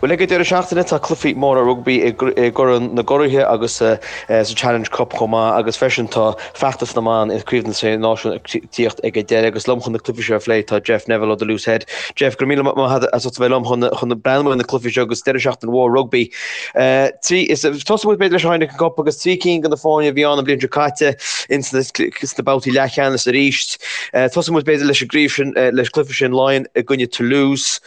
Bhuel, ag an deireadh seachtaine tá cluichí móra rugbaí i gCorn na gCuraithe agus sa Challenge Cup chomh maith agus freisin tá feachtas na mban i gCraobh na Sé Náisiún ag tíocht ag an deireadh agus liom chun na cluichí seo a phlé tá Jeff Neville ó The Loose Head. Jeff, go raibh míle maith agat as ucht a bheith liom chun chun breathnú ar na cluichí seo agus deireadh seachtaine mhór rugbaí. Tosóidh muid b'fhéidir leis an Heineken Cup agus 3 cinn de na foirne a bhí ann an bhliain seo caite ins na babhtaí leathcheannais arís. Tosóidh muid b'fhéidir leis an gcraobh sin, leis an gcluiche sin Laighean i gcoinne Toulouse.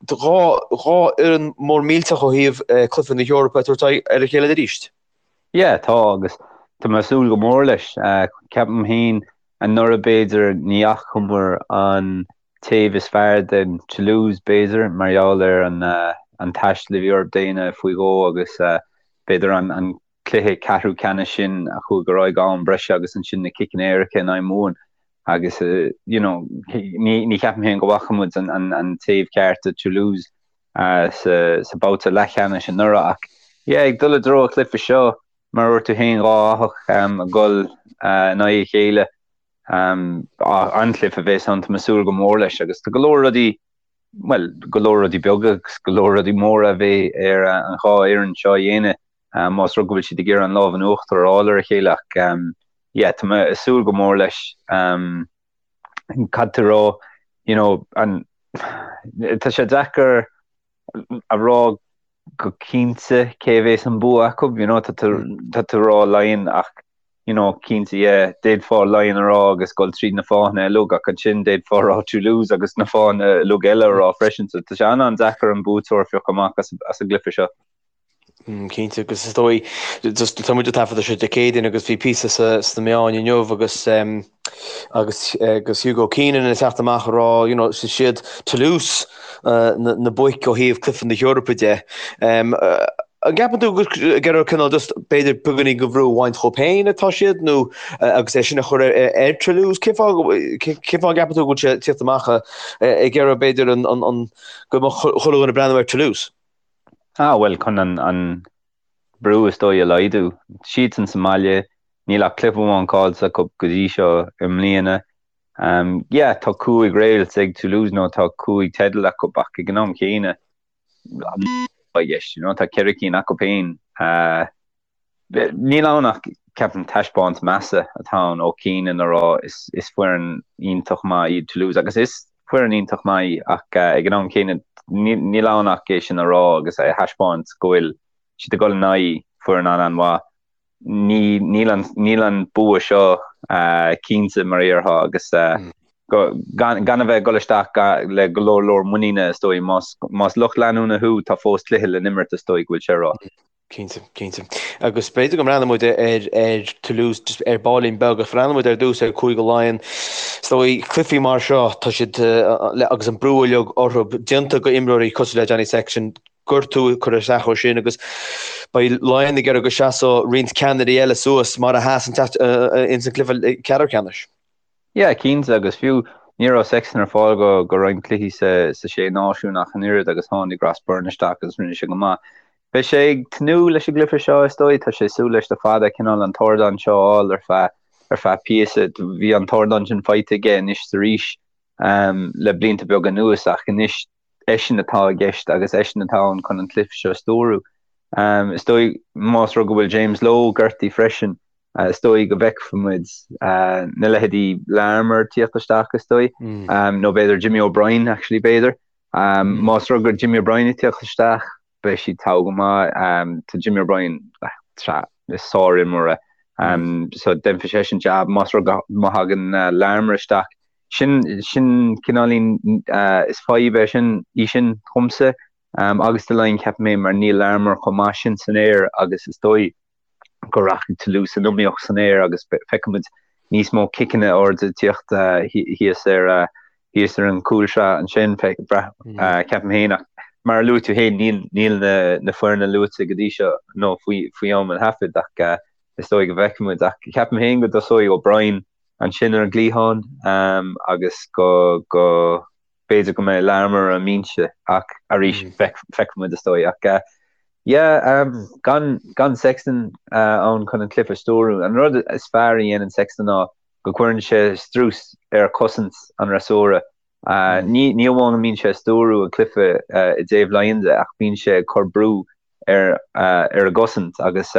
Dhá fhoireann mór millteach ó thaobh cluiche na hEorpa ag tabhairt aghaidh ar a chéile arís. Yeah, tá agus tá mé ag súil go mór leis. Ceapaim féin anuraidh b'fhéidir ní fhacamar an taobh is fearr den Toulouse b'fhéidir mar gheall ar an taisteal a bhí orthu déanamh faoi dhó agus b'fhéidir an cluiche ceathrú ceannais sin a chuaigh ar aghaidh go am breise agus ansin na ciceanna éirice in aghaidh Mumhan agus you know ní ní cheapaim féin go bhfaca muid an an an taobh ceart de Toulouse sa sa babhta leathcheannais anuraidh ach yeah ag dul i dtreo an chluiche seo mar a dúirt tú féin dhá fhathach ag dul in aghaidh a chéile an-chluiche a bheas ann tá mé ag súil go mór leis agus tá go leor rudaí bhuel go leor rudaí beaga agus go leor rudaí móra a bheidh ar an dhá fhoireann seo a dhéanamh más rud go bhfuil siad ag iarraidh an lámh in uachtar a fháil ar a chéile ach yeah tá mé ag súil go mór leis. Caithfidh tú a rá you know an tá sé deacair a rá go cinnte cé a bheas an bua acu you know tá tú tá tú ag rá Laighean ach you know cinnte yeah d'fhéadfá Laighean a rá agus dul tríd na fáthanna uilig ach ansin d'fhéadfá a rá Toulouse agus na fáthanna uilig eile a rá freisin so tá sé an-an-deacair an buaiteoir a phiocadh amach as as an gcluiche seo. Cinnte, agus is dóigh, just tá muid ag taifeadadh seo Dé Céadaoin agus bhí píosa sna meáin inniu agus agus agus Hugo Keenan ag teacht amach ag rá, you know, is iad Toulouse na boic ó thaobh cluiche na hEorpa de. An gceapann tú gur ag iarraidh cineál just b'fhéidir beagáinín de bhrú a bhaint dhóibh féin atá siad nó agus é sin a chur ar Toulouse? Cén fáth cén fáth a gceapann tú go bhfuil sé ag tíocht amach ag iarraidh b'fhéidir an an go mbeadh chuile dhuine ag breathnú ar Toulouse? Ah, bhuel, chun an brú is dóigh a laghdú. Siadsan sa mbaile, níl ach cluiche amháin caillte acu go dtí seo i mbliana. Yeah, tá cúig réalt ag Toulouse nó tá cúig teideal acu ach ag an am chéanna, i gceist, you know, tá ceithre cinn acu féin. Níl ann ach, ceapaim, taispeáint measa atá ann ó Keenan a rá is foireann iontach maith iad Toulouse agus is foireann iontach maith í ach ag an am céanna níl ann ach é sin a rá agus a thaispeáint go bhfuil siad ag dul in aghaidh foireann an-an-mhaith. Níl an níl an bua seo cinnte mar a déarfá agus gan a bheith ag dul isteach le go leor leor muiníne is dóigh. Más lucht leanúna thú tá fós cluiche le n-imirt is dóigh go bhfuil sé a rá. Cinnte, cinnte. Agus b'fhéidir go mbreathnóidh muid ar ar Toulouse just ar baillín beag ach breathnóidh muid ar dtús ar Cúige Laighean. Is dóigh cluichí mar seo tá siad agus an brú uilig orthu déanta go imreoirí cosúil le Johnny Sexton, gortú ag cur isteach air sin agus beidh Laighean ag iarraidh go seasódh roinnt ceannairí eile suas mar a sheas an ins an cluiche ceathrú ceannais. Yeah, cinnte, agus fiú ní raibh Sexton ar fáil go go roinnt cluichí sa sa Sé Náisiún ach an oiread agus tháinig Ross Byrne isteach agus rinne sé go maith. Beidh sé ag tnúth leis an gcluiche seo, is dóigh, tá sé ag súil leis le fada, cineál an t-ardán seo a fháil ar feadh ar feadh píosa. Bhí an t-ardán sin faighte aige anois is arís le blianta beaga anuas ach anois eisean atá i gceist agus eisean atá ann chun an cluiche seo a stiúradh. Is dóigh, más rud go bhfuil James Lowe gortaithe freisin, is dóigh go bhfeicfimid na leithéidí Larmour tíocht isteach, is dóigh, nó b'fhéidir Jimmy O'Brien, actually, b'fhéidir. Más rud gur Jimmy O'Brien ag tíocht isteach, beidh siad togha go maith. Tá Jimmy O'Brien, is sár-imreoir é. So déanfaidh seisean jab. Más rud go má thagann Larmour isteach, sin sin cineáilín is fadhb é sin í sin dhomsa agus do Laighin ceapaim é mar níl Larmour chomh maith sin san aer agus is dóigh go rachaidh Toulouse san iomaíocht san aer agus feicfimid níos mó ciceanna arda ag tíocht thíos ar thíos ar an gcúlsraith ansin ceapaim féin ach mar a luaigh tú féin níl níl na na foirne luaite go dtí seo nó faoi faoi am an thaifid ach is dóigh go bhfeicfimid ach ceapaim féin go dtosóidh O'Brien ansin ar an gcliathán agus go go b'fhéidir go mbeidh Larmour ar an mbinse ach arís feicfimid is dóigh ach yeah gan gan Sexton ann chun an cluiche a stiúradh. An rud is fearr a dhéanann Sexton ná go gcuireann sé strus ar chosaint an fhreasúra. Ní ní amháin go mbíonn sé ag stiúrú an cluiche i dtaobh Laighean de ach bíonn sé ag cur brú ar ar a gcosaint agus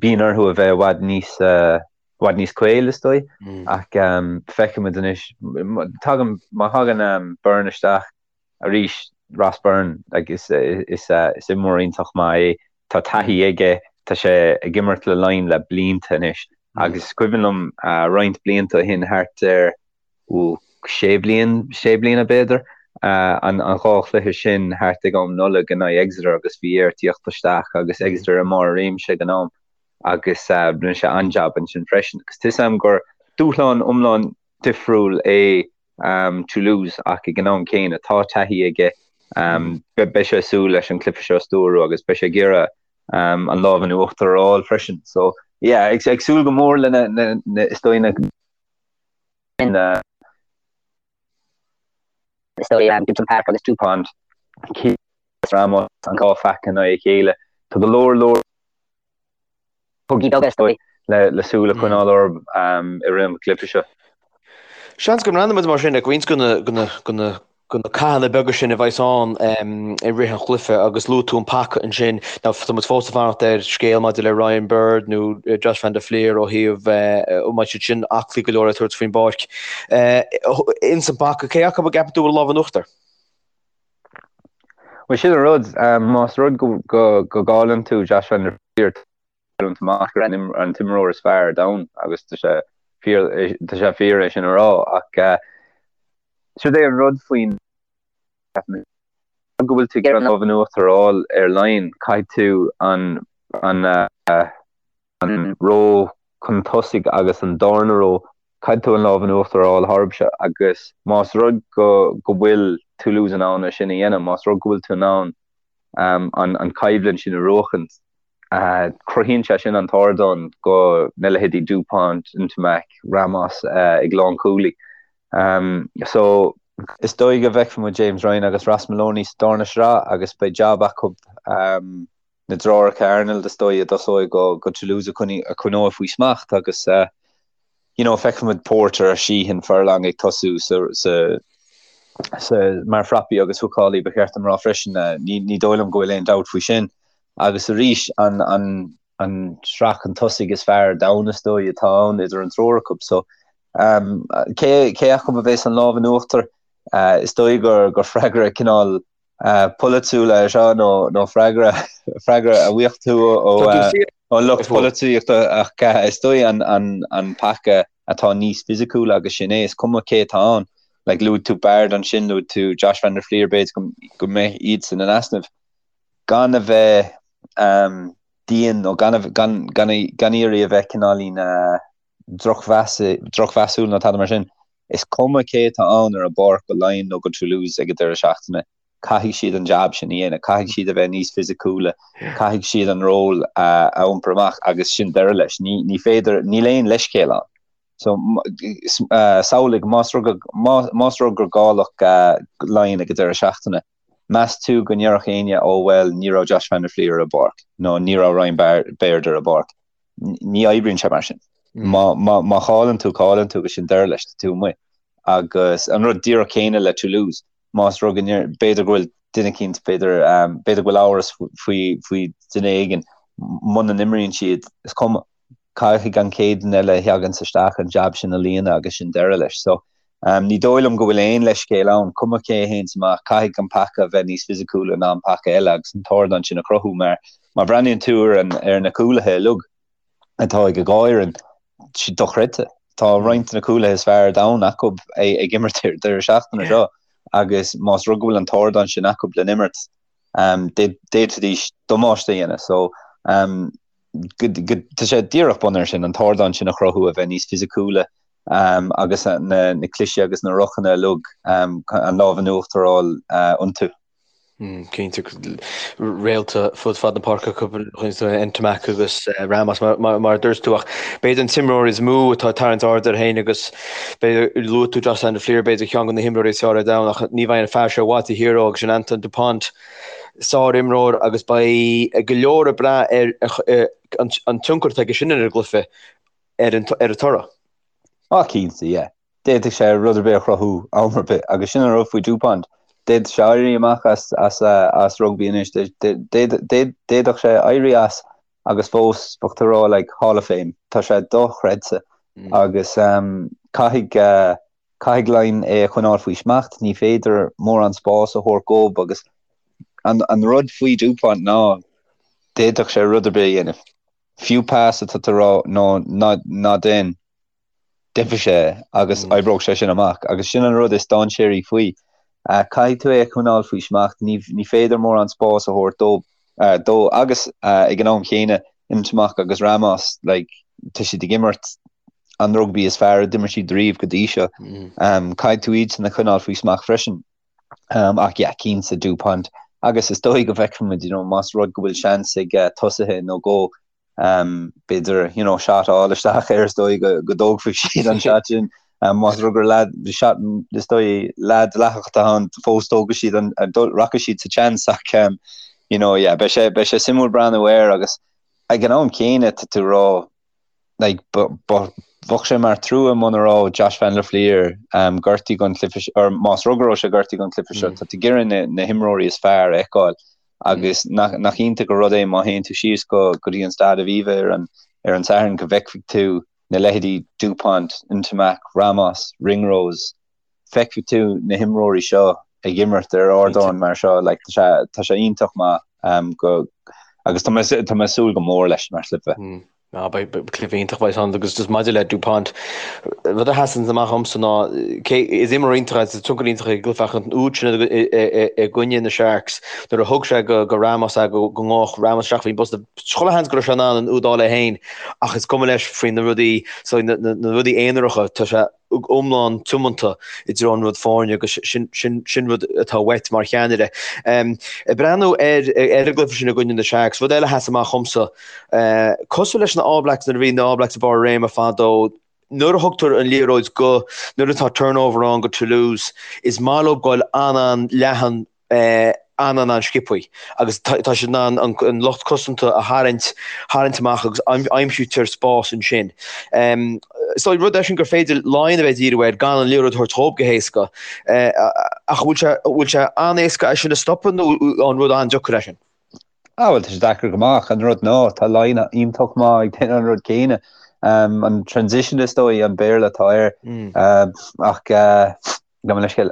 bíonn orthu a bheith i bhfad níos i bhfad níos caol is dóigh ach feicfimid anois tagann má thagann Byrne isteach arís Ross Byrne like is is is imreoir iontach maith é tá taithí aige tá sé ag imirt le Laighin le blianta anois agus is cuimhin liom roinnt blianta ó shin thart ar ó sé bliain, sé bliana b'fhéidir, an dhá chluiche sin thart ag am Nollag in aghaidh Exeter agus bhí air tíocht isteach agus Exeter i mbarr a réimse ag an am agus rinne sé an-jab ansin freisin. Agus tá 'fhios a'm gur dúshlán iomlán difriúil é Toulouse ach ag an am céanna tá taithí aige, beidh sé ag súil leis an cluiche seo a stiúrú agus beidh sé ag iarraidh an lámh in uachtar a fháil freisin. So yeah, ag súil go mór lena, is dóigh na na is dóigh Gibson Park agus Dupont Ramos an dhá phaca in aghaidh a chéile. Tá go leor leor cogaí beaga is dóigh le le súil a choinneáil orthu i rith an chluiche seo. Seans go mbreathnóimid mar sin ag roinnt de na de na cathanna beaga sin a bheas ann i rith an chluiche agus luaigh tú an paca ansin. Now tá muid fós ag fanacht ar scéal maidir le Ryan Baird nó Josh van der Flier ó thaobh an mbeidh siad sin aclaí go leor le tabhairt faoin bpáirc. Ins an bpaca, cé acu a gceapann tú a bhfuil lámh in uachtar? Bhuel sin an rud, más rud go gcailleann tú Josh van der Flier, cailliúint amach gur an t-imreoir is fearr ar domhan agus tá sé fíor tá sé fíor é sin a rá ach siod é an rud faoin go bhfuil tú ag iarraidh an lámh in uachtar a fháil ar Laighin caithfidh tú an an an ró chun tosaigh agus an darna ró caithfidh tú an lámh in uachtar a fháil tharbse agus más rud go go bhfuil Toulouse in ann é sin a dhéanamh más rud go bhfuil tú in ann an an coimhlint sin a bhuachaint Cruthaíonn sé sin an t-ardán do na leithéidí Dupont, Ntamack, Ramos ag lánchúlaí. So, is dóigh go bhfeicfidh muid James Ryan agus Ross Molony sa darna sraith agus beidh jab acu na deartháireacha Arnold is dóigh a dtosóidh go Toulouse a choinneoidh faoi smacht agus you know, feicfidh muid Porter, Sheehan, Furlong ag tosú sa, sa, sa, mar phrapaí agus húcálaí ba cheart dom rá freisin. Ní, ní dóigh liom go bhfuil aon dabht faoi sin. Agus arís, an, an, an sraith chun tosaigh is fearr ar domhan is dóigh atá ann idir an triúr acu. So, um, cé, cé acu a bheas an lámh in uachtar? Uh, is dóigh gur, gur freagra cineál polaitiúil é seo nó nó freagra freagra a bhfaigheadh tú ó ó lucht polaitíochta ach is dóigh an an an paca atá níos fisiciúla agus sin é is cuma cé atá ann. Like luaigh tú Baird ansin, luaigh tú Josh van der Flier b'fhéidir go go mbeidh iadsan in easnamh gan a bheith um, dian nó gan gan gan gan iarraidh a bheith cineáilín uh, drochmheasúil nó tada mar sin. Is cuma cé atá ann ar an bpáirc go Laighin nó go Toulouse ag an deireadh seachtaine, caithfidh siad an jab sin a dhéanamh, caithfidh siad a bheith níos fisiciúla, caithfidh siad an ról a iompar amach agus sin deireadh leis. Ní, ní féidir, níl aon leithscéal ann. So, samhlaigh, más rud, más rud gur cailleadh Laighin ag an deireadh seachtaine, meas tú go ndéarfadh éinne, oh well, ní raibh Josh van der Flier ar an bpáirc nó ní raibh Ryan Baird ar an bpáirc. Ní oibríonn sé mar sin. Má, má, má chailleann tú, cailleann tú agus sin deireadh leis, tá tú amuigh. Agus an rud díreach céanna le Toulouse, más rud go ndeir, b'fhéidir go bhfuil duine eicínt, b'fhéidir, b'fhéidir go bhfuil amhras faoi, faoi duine éigin, muna n-imríonn siad, is cuma. Caithfidh an chéad duine eile a theaganns isteach an jab sin a líonadh agus sin deireadh leis. So, ní dóigh liom go bhfuil aon leithscéal ann, cuma cé a théanns amach, caithfidh an paca a bheith níos fisiciúla ná an paca eile agus an t-ardán sin a chruthú mar má bhreathnaíonn tú ar an, ar na cúlaithe uilig atá ag an dhá fhoireann, siad dochreidte. Tá roinnt de na cúlaithe is fearr ar domhan acu ag imirt ar deireadh seachtaine seo agus más rud go bhfuil an t-ardán sin acu le n-imirt, d'fhéadfaidís damáiste a dhéanamh. So, tá sé díreach bunaithe ar sin, an t-ardán sin a chruthú, a bheith níos fisiciúla agus na cliseadh agus na rucanna uilig an lámh in uachtar a fháil iontu. Cinnte, réalta fud fad na páirce acu, Ntamack agus Ramos mar a dúirt tú ach b'fhéidir an t-imreoir is mó atá ag tarraingt aird air féin agus b'fhéidir luaigh tú Josh van der Flier b'fhéidir ceann de na himreoirí is fearr ar domhan ach ní bheidh an fear seo i bhfad taobh thiar dó agus sin Antoine Dupont. Sár-imreoir agus beidh go leor ag brath ar an tionchar atá aige sin ar an gcluiche ar an toradh. Ah cinnte, yeah. D'fhéadfadh sé rud ar bith a chruthú am ar bith agus sin an rud faoi Dupont. D'fhéadfadh sé éirí amach as as rugbaí anois. D'fhéadfadh sé éirí as agus fós bheadh tú ag rá like Hall of Fame. Tá sé dochreidte agus caithfidh caithfidh Laighin é a choinneáil faoi smacht. Ní féidir mórán spás a thabhairt dhób agus an an rud faoi Dupont ná d'fhéadfadh sé rud ar bith a dhéanamh. Fiú pas atá tú ag rá no ná ná déan. déanfaidh sé é agus oibreoidh sé sin amach agus sin an rud is dainséaraí faoi. Caithfidh tú é a choinneáil faoi smacht, ní ní féidir mórán spáis a thabhairt dó dó agus ag an am chéanna Ntamack agus Ramos like tá siad ag imirt an rugbaí is fearr a d'imir siad riamh go dtí seo. Caithfidh tú iad sin a choinneáil faoi smacht freisin. Ach yeah, cinnte Dupont agus is dóigh go bhfeicfimid you know más rud go bhfuil seans ag tosaithe nó dhó b'fhéidir you know shot a fháil isteach air is dóigh go go dtógfaidh siad an shot sin más rud gur leaid shot is dóigh leaid dleathach atá ann fós tógfaidh siad an rachaidh siad sa chance ach you know yeah beidh sé beidh sé suimiúil breathnú air agus ag an am céanna tá tú ag rá like bheadh sé mar trua muna raibh Josh van der Flier um, gortaithe don chluiche or más rud go raibh sé gortaithe don chluiche seo tá tú ag iarraidh na, na himreoirí is fearr a fheiceáil Agus nach iontach an rud é má théann tú síos go go dtí an Staid Aviva ar an ar an Satharn go bhfeicfidh tú na leithéidí Dupont, Ntamack, Ramos, Ringrose, feicfidh tú na himreoirí seo ag imirt ar ardán mar seo, like, tá sé tá sé iontach maith um, go agus tá mé tá mé ag súil go mór leis mar chluiche. Mm. Ná beidh cluiche iontach beidh ann agus just maidir le Dupont, rud a sheasann amach dhomsa ná cé is imreoir iontach é, tionchar iontach ag an gcluiche ach an úd sin i gcoinne na Sharks nuair a thug sé go go Ramos é go go ngabhadh Ramos isteach faoin bposta chuile sheans go raibh sé in ann an úd a fháil é féin ach is cuma leis faoi na rudaí so na na rudaí aonaracha tá sé iomlán tiomanta i dtreo an rud foirne agus sin, sin, sin rud atá uait mar cheannaire. Ag breathnú ar, ar an gcluiche sin i gcoinne na Sharks, rud eile a sheas amach dhomsa, cosúil leis na All Blacks nuair a bhí na All Blacks i barr a réime fadó, nuair a thugtar an liathróid go, nuair atá turnover ann go Toulouse, is maith leo goil an-an-leathan an-an-an-sciobthaí agus tá siad in ann an lucht cosanta a tharraingt tharraingt amach agus aimsítear spás ansin. So rud é sin gur féidir Laighin a bheith ag díriú air gan an liathróid a thabhairt dhóibh go héasca. Ach bhfuil sé bhfuil sé an-éasca é sin a stopadh nó an rud an-deacair é sin? Ah bhuel tá sé deacair go maith ach an rud ná tá Laighin iontach maith ag déanamh an rud céanna. An transition is dóigh an Béarla atá air. Ach gabh mo leithscéal.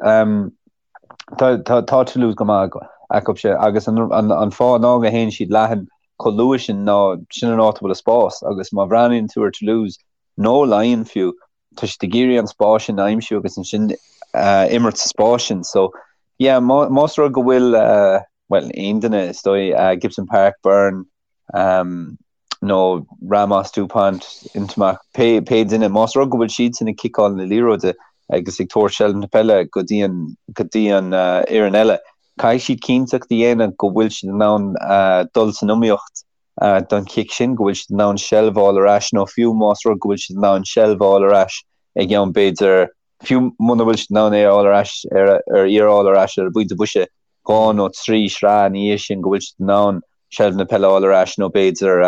Tá Toulouse go maith acu sin agus an fáth ná go théann siad leathan chomh luath sin ná sin an áit a bhfuil an spás agus má bhreathnaíonn tú ar Toulouse nó Laighin fiú tá siad ag iarraidh an spás sin a aimsiú agus ansin imirt sa spás sin. So yeah más rud go bhfuil bhuel aon duine is dóigh Gibson Park, Byrne, nó Ramos, Dupont, Ntamack, pé pé duine, más rud go bhfuil siadsan ag ciceáil na liathróide agus ag tabhairt seilbh na peile go dtí an go dtí an fhoireann eile, caithfidh siad cinnteacht a dhéanamh go bhfuil siad in ann dul san iomaíocht don chic sin, go bhfuil siad in ann seilbh a fháil ar ais nó fiú más rud go bhfuil siad in ann seilbh a fháil ar ais ag am b'fhéidir fiú muna bhfuil siad in ann é a fháil ar ais ar ar í a fháil ar ais ar an bpointe boise 2 nó 3 sraith ina dhiaidh sin go bhfuil siad in ann seilbh na peile a fháil ar ais nó b'fhéidir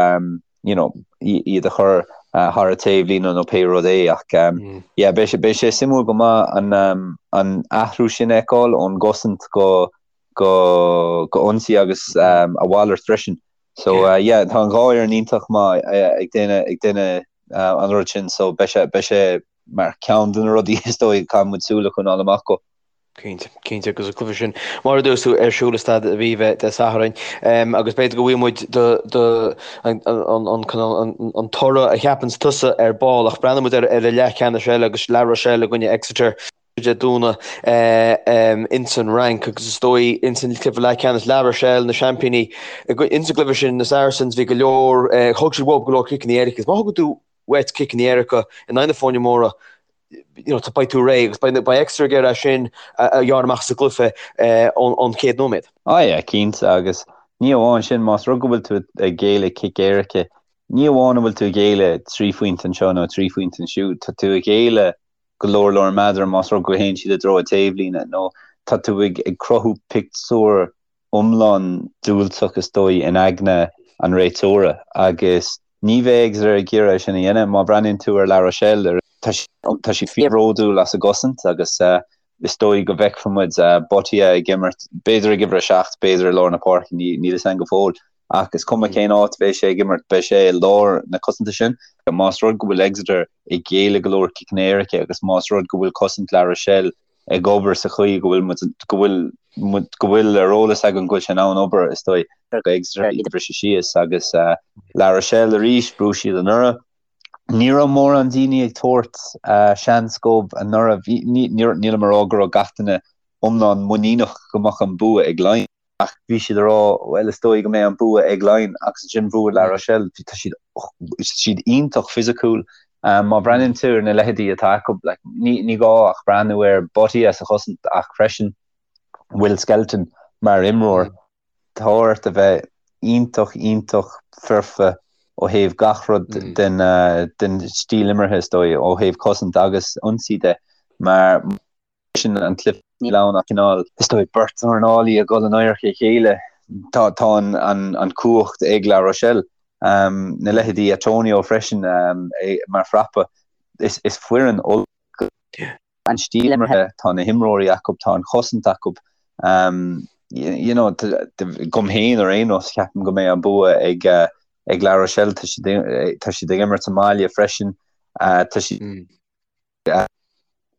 you know iad a chur thar an taobhlíne nó pé rud é ach yeah beidh sé beidh sé suimiúil go maith an an athrú sin a fheiceáil ón gcosaint go go go ionsaí agus a mhalairt freisin. So yeah tá an dhá fhoireann iontach maith ag déanamh ag déanamh an rud sin so beidh sé beidh sé mar ceann de na rudaí is dóigh caithfidh muid súil a choinneáil amach dó. Cinnte, cinnte, agus an cluiche sin, mar a dúirt tú, ar siúl i Staid Aviva Dé Sathairn, agus b'fhéidir go bhfaighidh muid do, do, an, an, an, an toradh a cheapanns tusa ar ball, ach breathnóidh muid ar, ar an leathcheannais eile agus La Rochelle i gcoinne Exeter Dé Domhnaigh ins an Fhrainc agus is dóigh ins an cluiche leathcheannais La Rochelle na seaimpíní ins an gcluiche sin na Saracens bhí go leor, thug siad uathu go leor ciceanna éirice agus má thugann tú uait ciceanna éirice in aghaidh na foirne móra, you know, beidh tú réidh agus beidh, beidh Exeter ag iarraidh é sin a ghearradh amach sa gcluiche ón, ón chéad nóiméad. Ah yeah, cinnte, agus ní amháin sin, más rud go bhfuil tú ag géilleadh cic éirice, ní amháin an bhfuil tú ag géilleadh 3 phointe anseo nó 3 phointe ansiúd, tá tú ag géilleadh go leor leor meadar más rud go théann siad i dtreo an taobhlíne nó tá tú ag, ag cruthú pictiúr iomlán diúltach is dóigh in aigne an réiteora agus ní bheidh Exeter ag iarraidh é sin a dhéanamh. Má bhreathnaíonn tú ar La Rochelle, Tá siad fíorbhródúil as a gcosaint agus is dóigh go bhfeicfidh muid Botia ag imirt, b'fhéidir ag uimhir 7, b'fhéidir i lár na páirce, níl fhios againn go fóill. Ach is cuma cén áit a bheidh sé ag imirt, beidh sé i lár na cosanta sin. Más rud go bhfuil Exeter ag géilleadh go leor ciceanna éirice agus más rud go bhfuil cosaint La Rochelle ag obair sa chaoi go bhfuil muid, go bhfuil muid, go bhfuil ar eolas againn go bhfuil sé in ann obair, is dóigh, go Exeter iad a bhriseadh síos agus La Rochelle arís, bhuaigh siad anuraidh. Ní raibh mórán daoine ag tabhairt seans dóibh anuraidh. Nílim ag rá go raibh gach duine iomlán muiníneach go mbeadh an bua ag Laighin, ach bhí siad ag rá, bhuel, is dóigh go mbeidh an bua ag Laighin agus ansin bhuaigh La Rochelle. Tá siad, siad iontach fisiciúil. Má bhreathnaíonn tú ar na leithéidí atá acu, like, ní, ní gá ach breathnú ar Botia sa chosaint ach freisin Will Skelton mar imreoir. Tá ort a bheith iontach, iontach foirfe ó thaobh gach rud den den stíl imeartha, is dóigh, ó thaobh cosaint agus ionsaí de, mar sin an cluiche níl ann ach cineál, is dóigh, beirt dornálaí ag dul in adharca a chéile. Tá tá an an an cumhacht ag La Rochelle. Na leithéidí Atonio freisin mar phrapa. Is is foireann ollmhór. an stíl imeartha, tá na himreoirí acu, tá an chosaint acu. You know, dom féin ar aon nós, ceapaim go mbeidh an bua ag ag La Rochelle. Tá siad tá siad ag imirt sa mbaile freisin. Tá siad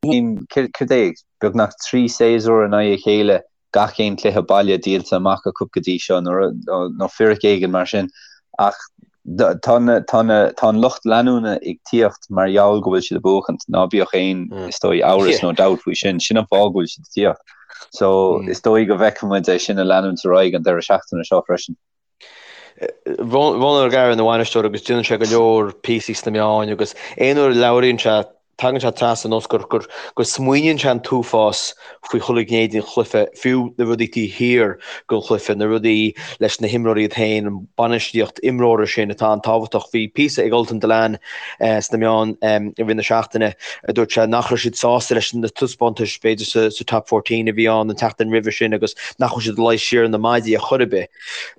céard é, beagnach 3 séasúr in aghaidh a chéile gach aon chluiche baile díolta amach acu go dtí seo, nó fíric éigin mar sin. Ach tá tá an lucht leanúna ag tíocht mar gheall go bhfuil siad ag buachaint, ná bíodh aon, is dóigh, amhras nó dabht faoi sin. Sin an fáth go bhfuil siad ag tíocht. So, is dóigh go bhfeicfidh muid é sin ag leanúint ar aghaidh an deireadh seachtaine seo freisin. Ronan O'Gara ina bhainisteoir agus déanann sé go leor píosaí sna meáin agus aon uair a labhraíonn sé tagann sé trasna ar nós gur gur go smaoiníonn sé an t-uafás faoi chuile ghné den chluiche, fiú na rudaí taobh thiar den chluiche, na rudaí leis na himreoirí iad féin, an bainistíocht imreora sin atá an-tábhachtach. Bhí píosa ag Ultan Dillane sna meáin i rith na seachtaine a dúirt sé nach raibh siad sásta leis na taispeántais b'fhéidir sa sa Top 14 a bhí ann an tseachtain roimhe sin agus nach bhfuil siad ag luí siar ar na maidí ar chor ar bith.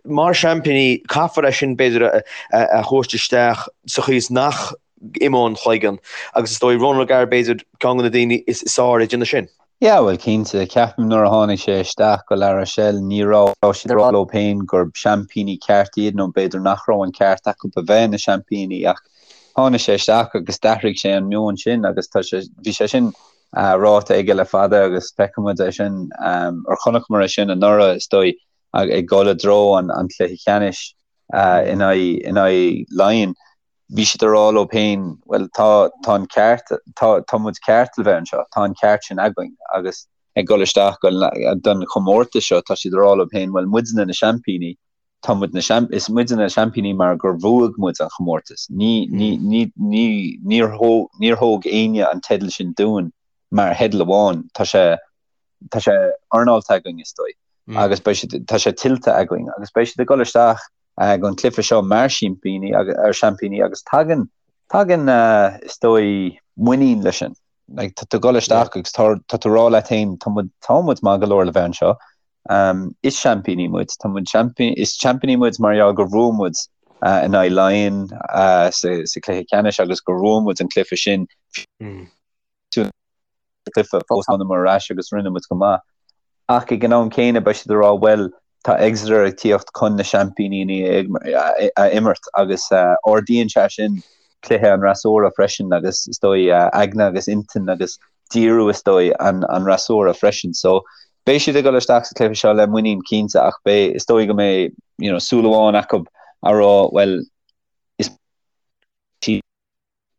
Mar seaimpíní, caithfear é sin, b'fhéidir, a thabhairt isteach sa chaoi is nach n-imeodh an cloigeann agus is dóigh Ronan O'Gara, b'fhéidir, ceann de na daoine is fearr ag déanamh sin. Yeah, bhuel, cinnte. Ceapaim nuair a tháinig sé isteach go La Rochelle ní raibh siad ag rá leo féin gur seaimpíní ceart iad nó b'fhéidir nach raibh an ceart acu a bheith ina seaimpíní ach tháinig sé isteach agus d'athraigh sé an meon sin agus tá sé, bhí sé sin ráite aige le fada agus feicfidh muid é sin, or chonaiceamar é sin anuraidh is dóigh. ag dul i dtreo an chluiche ceannais in aghaidh Laighean, bhí siad ag rá leo féin, bhuel, tá tá an ceart, tá tá muid ceart le bheith anseo, tá an ceart sin againn agus ag dul isteach don chomórtas seo, tá siad ag rá leo féin, bhuel, muidne na seaimpíní, tá muid na seaimp, is muidne na seaimpíní mar gur bhuaigh muid an chomórtas. Ní ní ní ní níor thóg níor thóg éinne an teideal sin dúinn mar theideal amháin, tá sé tá sé earnáilte againn is dóigh agus beidh siad, tá sé tuillte againn agus beidh siad ag dul isteach don chluiche seo mar seaimpíní ar seaimpíní agus tagann, tagann is dóigh muinín leis sin. Like, tá tú ag dul isteach agus tá, tá tú ag rá leat féin tá muid, tá muid maith go leor le bheith anseo. Um, is seaimpíní muid, tá muid seaimpíní, is seaimpíní muid mar gheall gur bhuaigh muid uh, in aghaidh Laighean uh, sa, sa chluiche ceannais agus gur bhuaigh muid an cluiche sin. Mm. cluiche fós thángamar ar ais agus rinne muid go maith. Ach ag an am céanna beidh siad ag rá bhuel tá Exeter ag tíocht chun na seaimpíní a imirt agus ardaíonn sé sin cluiche an fhreasúra freisin agus is dóigh aigne agus intinn agus díriú is dóigh an fhreasúra freisin. So beidh siad ag dul isteach sa chluiche seo le muinín cinnte ach beidh is dóigh go mbeidh you know súil amháin acu a rá bhuel is a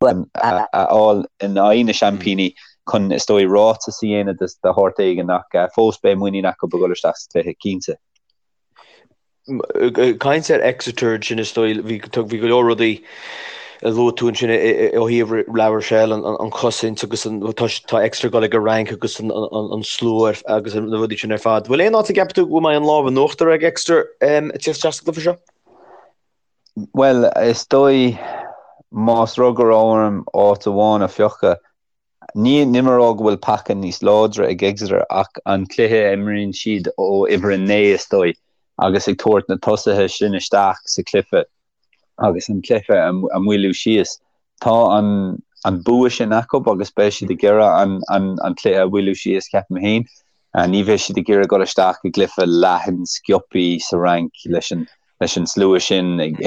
fháil in aghaidh na seaimpíní chun, is dóigh, ráiteas a dhéanamh de shórt éigin ach fós beidh muinín acu ag dul isteach sa chluiche, cinnte. Ag caint ar Exeter ansin, is dóigh, bhí go leor rudaí a luaigh tú ansin ó thaobh La Rochelle, an chosaint agus tá Exeter ag dul ag an Fhrainc agus an slua agus na rudaí sin ar fad. Bhfuil aon áit a gceapann tú go mbeidh an lámh in uachtar ag Exeter ag tíocht isteach sa gcluiche seo? Bhuel, is dóigh, más rud go raibh orm áit amháin a phiocadh, ní nílim ag rá go bhfuil paca níos láidre ag Exeter ach an cluiche a imríonn siad ó uimhir 9, is dóigh, agus ag tabhairt na tosaithe sin isteach sa chluiche agus an cluiche a mhoilliú síos. Tá an. an bua sin acu agus beidh siad ag iarraidh an an an cluiche a mhoilliú síos, ceapaim féin. Ní bheidh siad ag iarraidh dul isteach i gcluiche leathan sciobthaí sa Fhrainc leis an leis an slua sin ag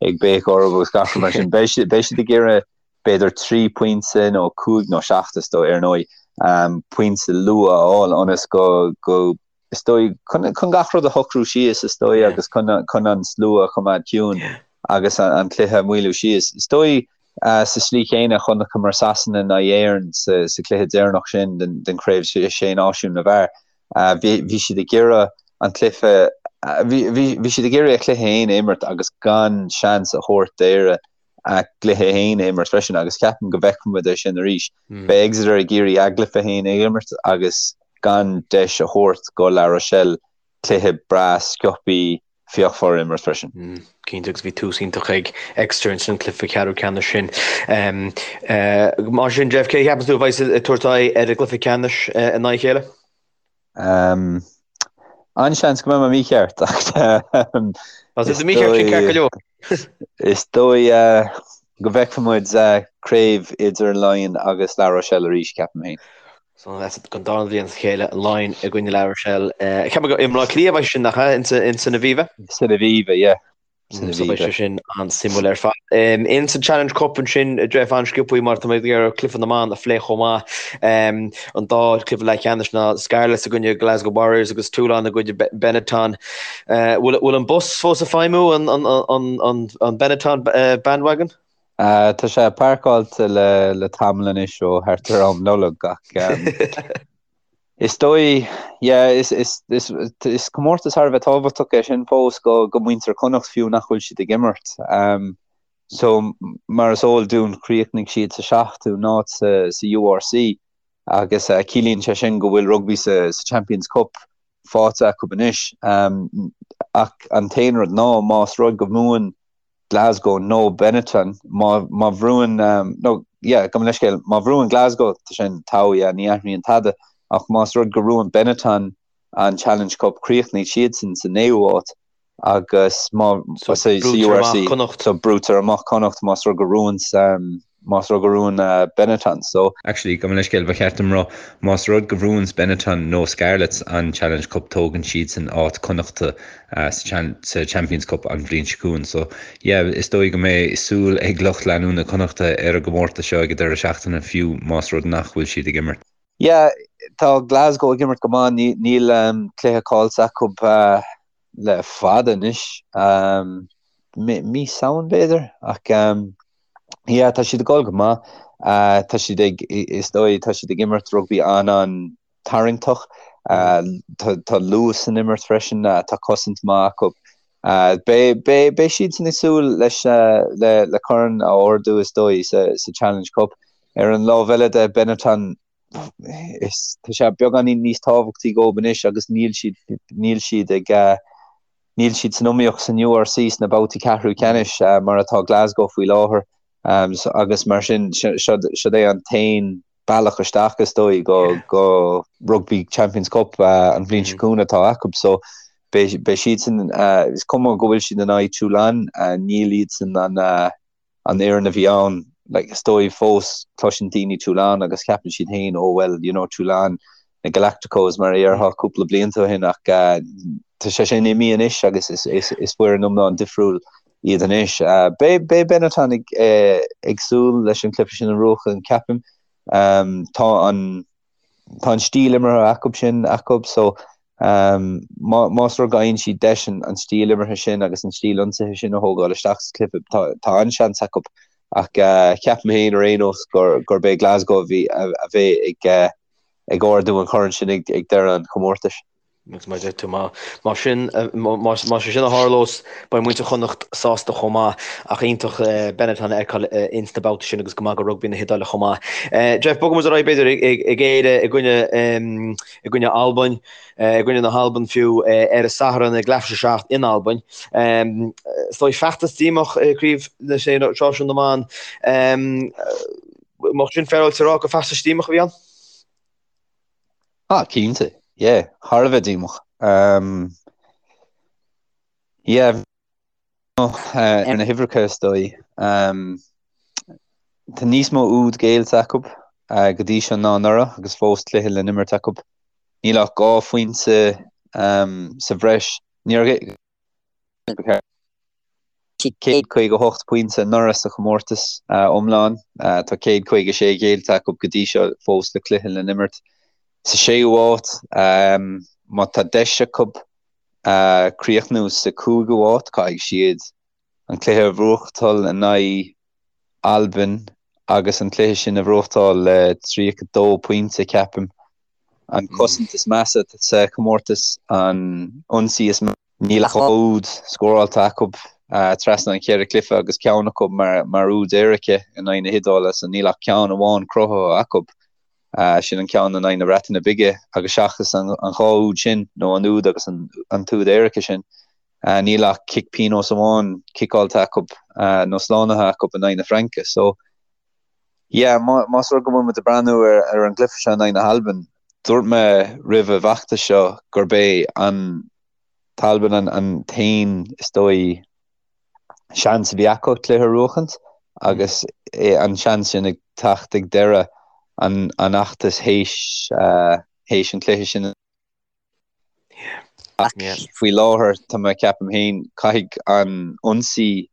ag béiceadh orthu agus gach rud mar sin. Beidh siad beidh siad ag iarraidh b'fhéidir 3 pointe nó 5 nó 7 is dóigh ar ndóigh, pointe luath a fháil ionas go go is dóigh, chun chun gach rud a shocrú síos is dóigh agus chun chun an slua a choimeád ciúin agus an cluiche a mhoilliú síos. Is dóigh sa slí chéanna chonaiceamar Sasana in aghaidh Éireann sa sa cluiche deireanach sin den den chraobh sé náisiún na bhfear. Bhí bhí siad ag iarraidh an cluiche bhí bhí bhí siad ag iarraidh a chluiche féin a imirt agus gan seans a thabhairt d'Éire a gcluiche féin a imirt freisin agus ceapaim go bhfeicfidh muid é sin arís. Beidh Exeter ag iarraidh a gcluiche féin a imirt agus gan deis a thabhairt go La Rochelle cluiche breá sciobthaí fíochmhar a imirt freisin. Cinnte agus bhí tús iontach ag Exeter ins an cluiche ceathrú ceannais sin. Mar sin Jeff, cé a cheapann tú a bheidh ag tabhairt aghaidh ar an gcluiche ceannais in aghaidh a chéile? An-seans go mbeidh mé mícheart ach Tá tú mícheart sin ceart go leor. Is dóigh go bhfeicfidh muid craobh idir Laighin agus La Rochelle arís, ceapaim féin. So don dara bhliain as a chéile, Laighin i gcoinne La Rochelle. Ceapaim go i mBleá Cliath a bheidh sin nach ea, in san Aviva? San Aviva, yeah. So beidh sé sin an-suimiúil ar fad. In sa Challenge Cup ansin, Jeff, an-sciobthaí mar tá mé ag iarraidh cluiche na mban a phlé chomh maith. An dá chluiche leathcheannais ná Scarlets i gcoinne Glasgow Warriors agus Toulon i gcoinne Benetton. Bhfuil an bus fós ag feidhmiú, an Benetton bandwagon? Tá sé páirceáilte le tamall anois ó thart ar am Nollag ach Is dóigh, yeah, is, is, is, is comórtas thar a bheith tábhachtach é sin fós go, go muintir Chonnacht fiú nach bhfuil siad ag imirt. Um, so, mar is eol dúinn chríochnaigh siad sa seachtú n-áit sa, sa URC agus uh, ciallaíonn sé sin go bhfuil rugbaí sa, sa Champions Cup faighte acu anois. Um, ach an t-aon rud ná más rud go mbuann Glasgow nó Benetton, má má bhuann nó yeah gabh mo leithscéal, má bhuann Glasgow tá sin togha yeah ní athraíonn tada ach más rud go mbuann Benetton an Challenge Cup críochnaíonn siadsan sa naoú háit agus má So sa brúitear amach URC Connacht. so brúitear amach Connacht más rud go mbuann más rud go mbuann Benetton so. Actually, gabh mo leithscéal, ba cheart dom rá, más rud go bhuanns Benetton nó Scarlets an Challenge Cup tógann siadsan áit Connachta sa Champions Cup an bhliain seo chugainn. So, yeah, is dóigh go mbeidh súil ag lucht leanúna Connachta ar an gcomórtas seo ag an deireadh seachtaine fiú más rud nach bhfuil siad ag imirt. Yeah, tá Glasgow ag imirt go maith, níl cluiche caillte acu le fada anois, mí Samhain b'fhéidir, ach Yeah, tá siad ag dul go maith. Tá siad ag, is dóigh, tá siad ag imirt rugbaí an-an-tarraingteach. Tá luas san imirt freisin, tá cosaint maith acu. Beidh, beidh, beidh siadsan ag súil leis, le, le corn a ardú is dóigh sa, sa Challenge Cup. Ar an lámh eile de, Benetton, is, tá sé beagáinín níos tábhachtaí dóibh anois agus níl siad, níl siad ag, Níl siad san iomaíocht san URC sna babhtaí ceathrú ceannais mar atá Glasgow faoi láthair agus mar sin siod é an t-aon bealach isteach is dóigh go go Rugby Champions Cup an bhliain seo chugainn atá acu so beidh siadsan is cuma go bhfuil siad in aghaidh Toulon níl iadsan an an fhoireann a bhí ann, like, is dóigh fós cloiseann daoine Toulon agus ceapann siad féin oh well, you know, Toulon, na Galacticos mar a déarfá cúpla blianta ó shin ach tá sé sin imithe anois agus is, is, is foireann iomlán difriúil iad anois. Beidh, beidh Benetton ag, ag súil leis an cluiche sin a bhuachan, ceapaim. Tá an, Tá an stíl imeartha acu sin acu so más rud go bhfaigheann siad deis an stíl imeartha sin agus an stíl ionsaithe sin a thógáil isteach sa chluiche, tá an-seans acu. Ach ceapaim féin ar aon nós gurb é Glasgow a bheidh ag ardú an choirn sin ag deireadh an chomórtais. Agus mar a deir tú, má sin, más é sin a tharlós, beidh muintir Chonnacht sásta chomh maith. Ach iontach Benetton a fheiceáil ins na babhtaí sin agus go maith go rugbaí na hIodáile chomh maith. Jeff, bogfaidh muid ar aghaidh b'fhéidir ag Éire i gcoinne, i gcoinne Albain, i gcoinne na hAlban fiú, ar an Satharn ag leathuair tar éis a 7 in Albain. Is dóigh feachtas díomách i gCraobh na Sé Náisiún na mBan. Mbeadh sin féaráilte a rá gur feachtas díomách a bhí ann? Ah, cinnte. Yeah, thar a bheith díomách. Um, yeah, ar na huimhreacha is dóigh. Um, Tá níos mó úd géillte acu go dtí seo ná anuraidh agus fós cluiche le n-imirt acu. Níl ach 2 phointe sa bhreis. Níor 158 pointe anuraidh sa chomórtas iomlán. Tá 156 géillte acu go dtí seo fós le cluiche le n-imirt. Sa séú háit, má tá deis acu críochnú sa cúigiú háit, caithfidh siad an cluiche a bhuachtáil in aghaidh Albain agus an cluiche sin a bhuachtáil le 32 pointe, ceapaim. An cosaint is measa sa chomórtas, an ionsaí is measa. Níl ach 2 úd scóráilte acu trasna an cheithre chluiche agus ceann acu mar úd éirice in aghaidh na hIodáile, so níl ach ceann amháin cruthaithe acu, sin an ceann in aghaidh na Breataine Bige, agus seachas an dhá úd sin, nó an úd agus an t-úd éirice sin, níl ach cic pionóis amháin ciceáilte acu nó slánaithe acu in aghaidh na Fraince. So, yeah, más rud go bhfuil muid ag breathnú ar an gcluiche seo in aghaidh na hAlban, dúirt mé roimh an bhfeachtas seo gurb é an tAlbain an t-aon, is dóigh, seans a bhí acu cluiche a bhuachaint agus an seans sin ag teacht ag deireadh an fheachtais théis an chluiche sin. Ach faoi láthair, tá mé, ceapaim féin, caithfidh an ionsaí,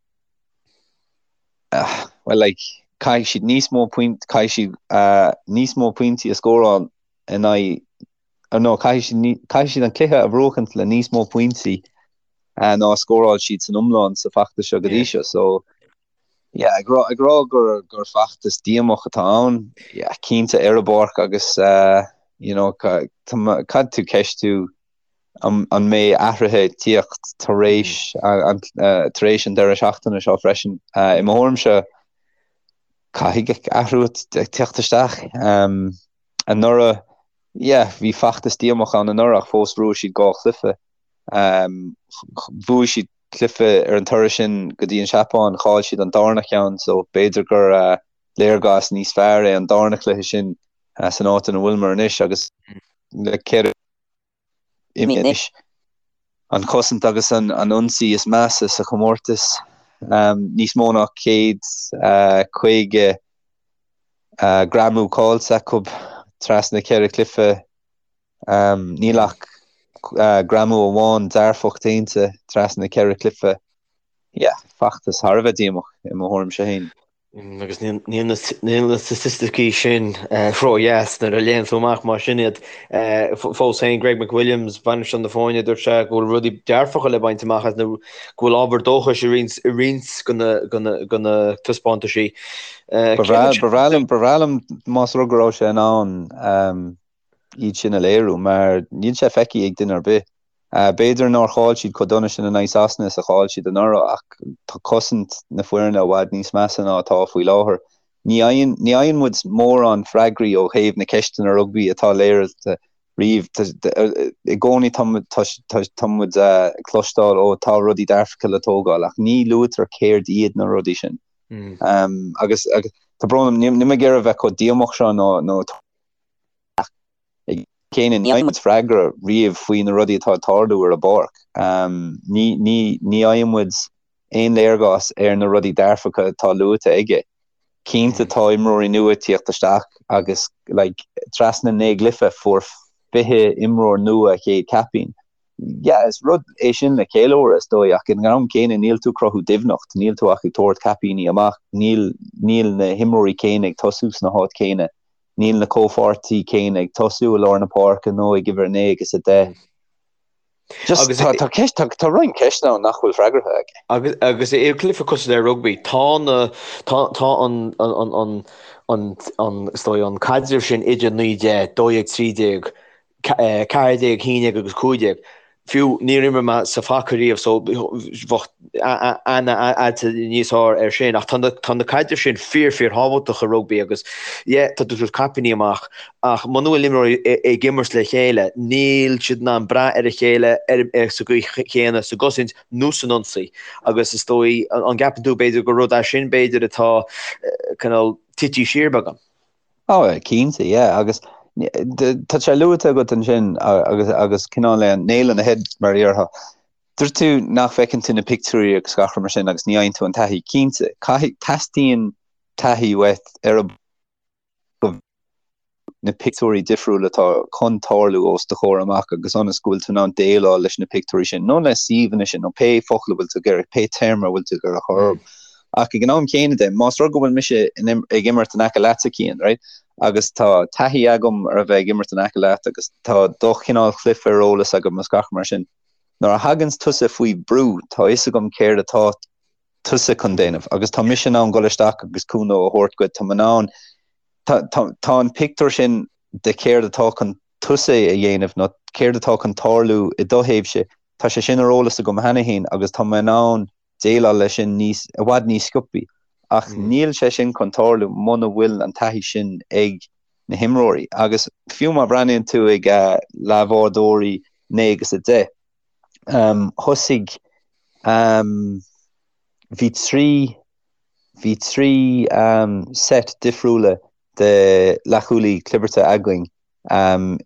well like, caithfidh siad níos mó point, caithfidh siad níos mó pointí a scóráil in aghaidh, nó caithfidh siad, caithfidh siad an cluiche a bhuachaint le níos mó pointí ná a scóráil siad san iomlán sa bhfeachtas seo go dtí seo. So, Yeah, ag rá, ag rá gur, gur feachtas díomách atá ann, yeah, cinnte ar an bpáirc agus uh, you know, caithfidh tú ceistiú an, an mbeidh athruithe ag tíocht tar éis mm. an, uh, tar éis an deireadh seachtaine seo freisin. Uh, I mo thuairimse caithfidh athrú tíocht isteach. Um, anuraidh, yeah, bhí feachtas díomách ann anuraidh ach fós bhuaigh siad dhá chluiche. Um, bhuaigh siad cluiche ar an turas sin go dtí an Seapáin, chaill siad an darna ceann so b'fhéidir gur léargas níos fearr é an darna cluiche sin san áit ina bhfuileamar anois agus le 4 imithe anois. An chosaint agus an ionsaí is measa sa chomórtas, níos mó ná 150 greamú caillte acu trasna 4 chluiche. Níl ach greamú amháin dearfach déanta trasna na ceithre chluiche. Yeah, feachtas thar a bheith díomách i mo thuairimse féin. Agus níl na staitisticí sin ródheas nuair a léann tú amach mar sin iad. Fós féin, Greg McWilliams, bainisteoir na foirne, dúirt sé go bhfuil rudaí dearfacha le baint amach as nó go bhfuil ábhar dóchais i roinnt de na taispeántaisí. Ba bhreá liom más rud go raibh sé in ann iad sin a léiriú, mar níl sé feicthe ag duine ar bith. B'fhéidir nár chaill siad chomh dona sin in aghaidh Sasana is a chaill siad anuraidh ach tá cosaint na foirne i bhfad níos measa ná atá faoi láthair. Ní fhaigheann, ní fhaigheann muid mórán freagraí ó thaobh na ceisteanna rugbaí atá léirithe riamh. I gcónaí tá, tá, tá muid ag cloisteáil ó tá rudaí dearfacha le tógáil ach ní luaitear céard iad na rudaí sin. Agus, agus tá brón orm, níl mé ag iarraidh a bheith chomh díomách seo nó, nó Ach ag an am céanna ní fhaigheann muid freagra riamh faoi na rudaí atá ag tarlú ar an bpáirc. Ní ní fhaigheann muid aon léargas ar na rudaí dearfacha atá luaite aige. Cinnte tá imreoirí nua ag tíocht isteach agus like trasna 9 gcluiche fuair 20 imreoir nua a chéad caipín. Yeah, is rud é sin le ceiliúradh is dóigh ach ag an am céanna níl tú ag cruthú doimhneacht, níl tú ach ag tabhairt caipíní amach, níl níl na himreoirí céanna ag tosú sna háit céanna. Níl na comhpháirtí céanna ag tosú i lár na páirce nó ag uimhir 9 agus 10. Just Agus tá, tá ceist, tá, tá roinnt ceisteanna ann nach bhfuil freagartha aige. Agus, agus i gcluiche cosúil le rugbaí, tá na, tá, tá an, an, an, an, an, an, is dóigh, an caidreamh sin idir 9, 10, 12, 13, 14, 11 agus 15. Fiú níor imir mé sa phaca riamh so bheadh aithne a'd níos fearr air sin ach tá na tá na caidrimh sin fíor fíor thábhachtach i rugbaí agus yeah tá tú ag tabhairt caipíní amach ach muna bhfuil imreoirí ag imirt le chéile níl siad in ann brath ar a chéile ar sa gcaoi chéanna sa gcosaint nó san ionsaí agus is dóigh an gceapann tú b'fhéidir gur rud é sin b'fhéidir atá cineál tite siar beagán? Ó, cinnte, yeah, agus tá sé luaite agat ansin agus agus cineál le nail on the head mar a déarfá. Dúirt tú nach bhfeiceann tú na pictiúirí agus gach rud mar sin agus ní fhaigheann tú an taithí. Cinnte, caithfidh, teastaíonn. taithí uait ar an go na pictiúirí difriúla atá chun tarlú os do chomhair amach agus ionas go bhfuil tú in ann déileáil leis na pictiúirí sin nó le suíomhanna sin nó pé focal a bhfuil tú ag iarraidh, pé téarma a bhfuil tú ag iarraidh a chur orthu. Ach ag an am céanna de, más rud go bhfuil mise ag imirt in aice leatsa, Cian, right, agus tá taithí agam ar a bheith ag imirt in aice leat agus tá do chineál cluife ar eolas agam agus gach mar sin, nuair a thaganns tusa faoi brú, tá fhios agam céard atá tusa chun déanamh agus tá mise in ann dul isteach agus cúnamh a thabhairt duit, tá mé in ann, tá, tá, tá an pictiúr sin de céard atá chun tusa a dhéanamh nó céard atá chun tarlú i do thaobhse, tá sé sin ar eolas agam cheana féin agus tá mé in ann déileáil leis sin níos, i bhfad níos sciobthaí. Ach níl sé sin chun tarlú muna bhfuil an taithí sin ag na himreoirí. Agus fiú má bhreathnaíonn tú ag leathbhádóirí 9 agus 10, Thosaigh, bhí 3, bhí 3 set difriúla de leathchúlaí clibirte againn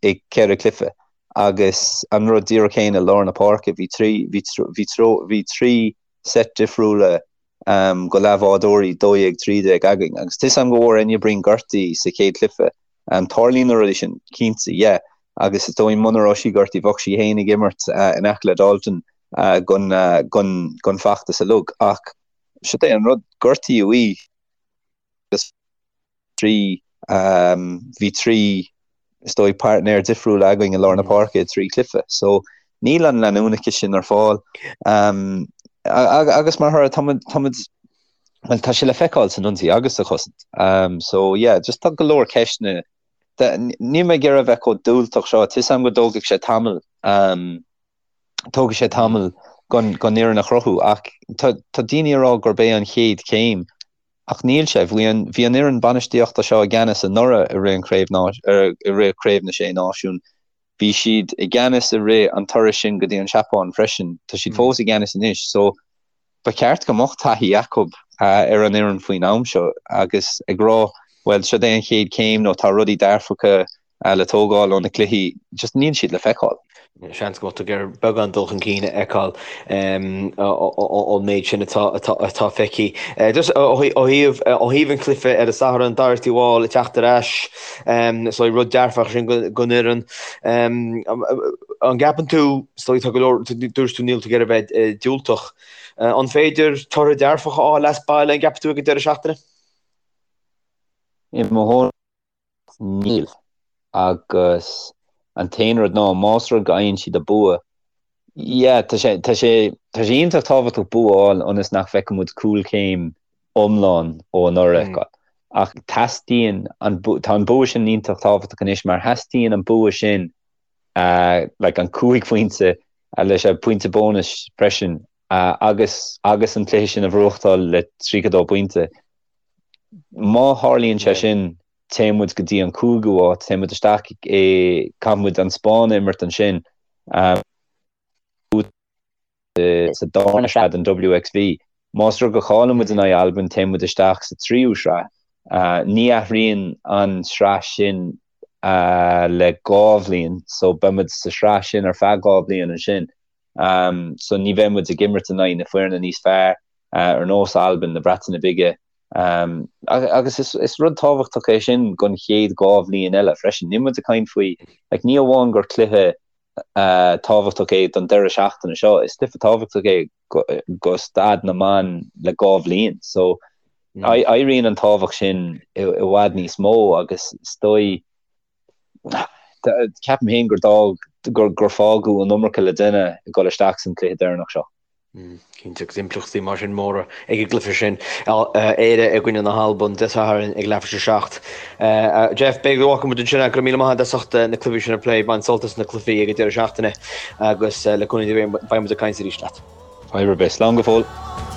i gceithre chluiche agus an rud díreach céanna i lár na páirce, bhí 3, bhí, bhí, bhí 3 set difriúla go leathbhádóirí 12, 13 againn agus tá 'fhios a'm go bhfuair Enya Breen gortaithe sa chéad chluiche. Tarlaíonn na rudaí sin, cinnte, yeah. Agus is dóigh muna raibh sí gortaithe bheadh sí féin ag imirt in aice le Dalton gon, gon, gon feachtas uilig. Ach siod é an rud, gortaíodh í agus 3, bhí 3, is dóigh, páirtnéir difriúla againn i lár na páirce i dtrí chluiche. So níl an leanúnachas sin ar fáil. Agus mar thoradh, táimid, táimid, bhuel, tá sé le feiceáil san ionsaí agus sa chosaint. So yeah, just tá go leor ceisteanna. Níl mé ag iarraidh a bheith chomh diúltach seo, tá 'fhios a'm go dtógfaidh sé tamall, tógfaidh sé tamall gon, gon fhoireann a chruthú ach tá, tá daoine ag rá gurb é an chéad chéim Ach níl sé. Bhí an bhí an fhoireann bainistíochta seo i gceannas anuraidh i rith an chraobh i rith Craobh na Sé Náisiún. Bhí siad i gceannas i rith an turais sin go dtí an Seapáin freisin. Tá siad fós i gceannas anois. So ba cheart go mbeadh taithí acu ar an fhoireann faoin am seo agus ag rá bhuel seo é an chéad chéim nó tá rudaí dearfacha le tógáil ó na cluichí, just níl siad le feiceáil. Seans go mbeadh tú ag iarraidh beagán dul chun cinn a fheiceáil ón méid sin atá feicthe. Just ó thaobh an chluiche ar an Satharn, Doherty Wall ag teacht ar ais, so rud dearfach sin don fhoireann. An gceapann tú, is dóigh tá go leor, dúirt tú níl tú ag iarraidh a bheith diúltach. An féidir toradh dearfach a fháil as baile, an gceapann tú ag an deireadh seachtaine? I mo thuairim Níl. Agus an t-aon rud ná, más rud go fhaigheann siad an bua, yeah, tá sé, tá sé, tá sé iontach tábhachtach bua a fháil ionas nach bhfeicfidh muid cúlchéim iomlán ó anuraidh a fheiceáil. Ach teastaíonn an, tá an bua sin iontach tábhachtach anois mar theastaíonn an bua sin, like an 5 phointe leis an pointe bónais freisin agus, agus an cluiche sin a bhuachtáil le 32 pointe. Má tharlaíonn sé sin, téann muid go dtí an cúigiú háit, téann muid isteach i, caithfidh muid an Spáinn a imirt ansin sa darna sraith den WXV. Más rud go chailleann muid in aghaidh Albain, téann muid isteach sa tríú sraith. Ní athraíonn an sraith sin le 2 bhliain, so beidh muid sa sraith sin ar feadh 2 bhliain ansin. So ní bheidh muid ag imirt in aghaidh na foirne níos fearr. ar nós Albain, na Breataine Bige, agus is rud tábhachtach é sin don chéad 2 bhliain eile freisin. Níl muid ag caint faoi, like, ní amháin gur cluiche tábhachtach é don deireadh seachtaine seo, is cluiche tábhachtach é go staid na mban le 2 bhliain. So, éiríonn an tábhacht sin i bhfad níos mó agus is dóigh, ceapaim féin gur d'fhág, gur fágadh an iomarca le déanamh ag dul isteach san cluiche deireanach seo. Cinnte, agus impleachtaí mar sin móra ag an gcluiche sin. Éire i gcoinne na hAlban Dé Sathairn ag leathuair tar éis a 7. Jeff, b'fhéidir go bhfágfaidh muid ansin é. Go raibh míle maith agat as ucht na cluichí sin a phlé. Bain sult as na cluichí ag an deireadh seachtaine agus le cúnamh Dé beidh muid ag caint arís leat. Fadhb ar bith. Slán go fóill.